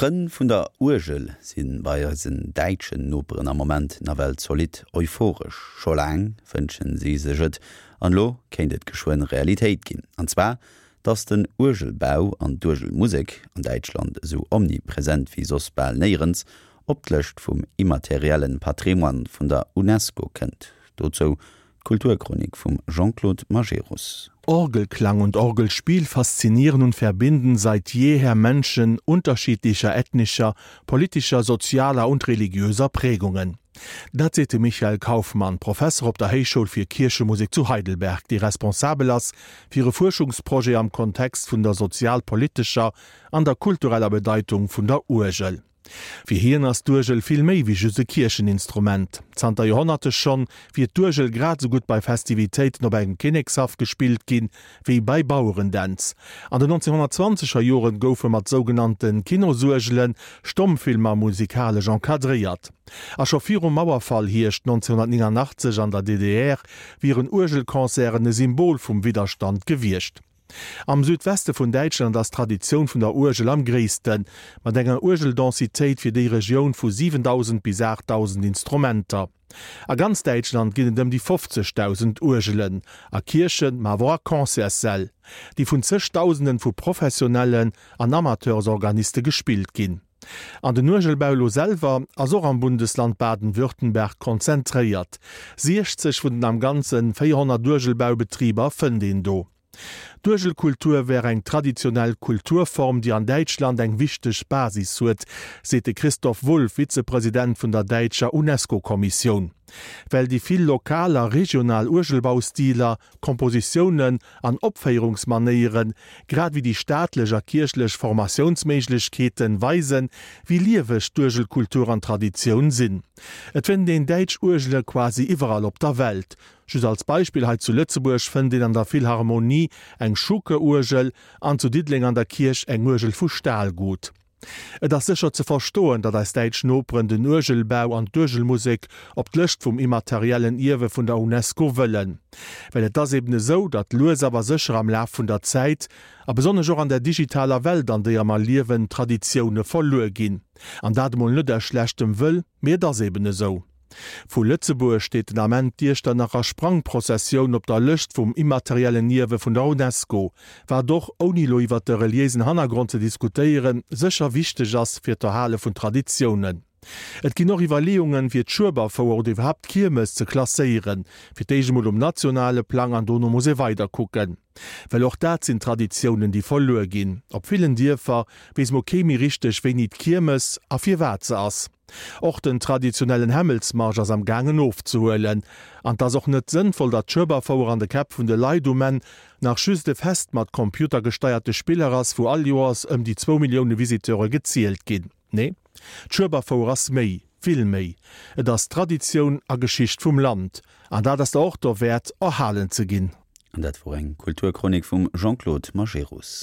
D'Frënn vun der Uergel si bei eisen däitschen Noperen am Moment nawell zolidd euphoresch. Scho laang wënschen si sech et, an elo kéint et geschwënn Realitéit ginn. An zwar, datt den Uergelbau an d'Uergelmusek, an Däitschland esou omnipresent wéi soss bal néierens, op d'Lëscht vum immateriellen Patrimoine vun der Unesco kënnt. Dozou d'Kulturchronik vum Jean-Claude Majerus. Orgelklang und Orgelspiel faszinieren und verbinden seit jeher Menschen unterschiedlicher ethnischer, politischer, sozialer und religiöser Prägungen. Dat seet de Michael Kaufmann, Professer op der Héichschoul fir Kierchemusek zu Heidelberg, dee responsabel ass fir e Fuerschungsprojet am Kontext vun der sozialpolitescher an der kultureller Bedeitung vun der Uergel. Fir hien ass d'Uergel vill méi wéi just e Kiercheninstrument. Zanter Joerhonnerte schonn wier d'Uergel grad esou gutt bei Festivitéiten op engem Kinnekshaff gespillt ginn, wéi bei Bauerendänz. An den 1920er Joren goufe mat sougenannte Kinosuergele Stommfilmer musikalesch encadréiert. A scho virum Mauerfall Hierscht 1989 an der DDR wieren Uergelconcerten e Symbol vum Widderstand gewiescht. Am Südweste vun Däitschland ass d'Traditioun vun der Uergel am gréissten, mat enger Uergeldensitéit fir déi Regioun vu 7.000 bis 8.000 Instrumenter. A ganz Däitschland ginn et ëm déi 50.000 Uergelen, a Kierchen, ma awer och a Concertssäll, déi vun zeg Dausenden vu professionellen an Amateursorganiste gespillt ginn. An den Uergelbau elo selwer ass och am Bundesland Baden-Württemberg konzentréiert. 60 vun den am Ganzen 400 Uergelbaubetriber fënnt een do. D'Uergelkultur wär eng traditionell Kulturform, déi an Däitschland eng wichteg Basis huet, seet de Christoph Wulff, Vizepresident vun der däitscher UNESCO-Kommissioun. Well déi vill lokal a regional Uergelbaustiler, Kompositiounen an Opféierungsmanéieren, grad ewéi déi staatlech a kierchlech Formatiounsméiglechkeeten, weisen, wéi lieweg d'Uergelkultur an d'Traditioun sinn. Et fënnt een däitsch Uergele quasi iwwerall op der Welt. Just als Beispill, hei zu Lëtzebuerg fënnt een an der Philharmonie eng Schuke-Uergel an zu Diddeleng an der Kierch eng Uergel vu Stahlgut. Et ass sécher ze verstoen, datt eis däitsch Noperen den Uergelbau an d'Uergelmusek op d'Lëscht vum immateriellen Ierwe vun der Unesco wëllen. Well et ass eben esou, datt lues awer sécher am Laf vun der Zäit, a besonnesch och an der digitaler Welt an déier mer liewen, Traditioune verluer ginn. An dat emol net aus schlechtem Wëll, mee et ass eben esou. Vu Lëtzebuerg steet den Ament d'Iechternacher Sprangprozessioun op der Lëscht vum immateriellen Ierwe vun der Unesco, wat och, ouni elo iwwert de reliéisen Hannergrond ze diskutéieren, sécher wichteg ass fir d'Erhale vun Traditiounen. Et ginn och Iwwerleeungen, fir d'Schueberfouer oder iwwerhaapt d'Kiermes ze klasséieren, fir d'éischt emol um nationale Plang an dono muss ee weiderkucken. Well och dat sinn Traditiounen, déi verluer ginn. Op villen Dierfer weess mol kee méi richteg, wéini d'Kiermes a firwat se ass. Och den traditionellen Hämmelsmarsch ass am gaangen ofzehuelen. An 't ass och net sënnvoll, datt d'Schueberfouer an de Käpp vun de Leit um Enn nach just e Fest mat computergesteierte Spiller ass, wou all Joers ëm déi zwou Millioune Visiteure gezielt ginn. Nee, d'Schueberfouer ass méi, vill méi. Et ass Traditioun a Geschicht vum Land. An dat ass der och dowäert, erhalen ze ginn. An dat wor eng Kulturchronik vum Jean-Claude Majerus.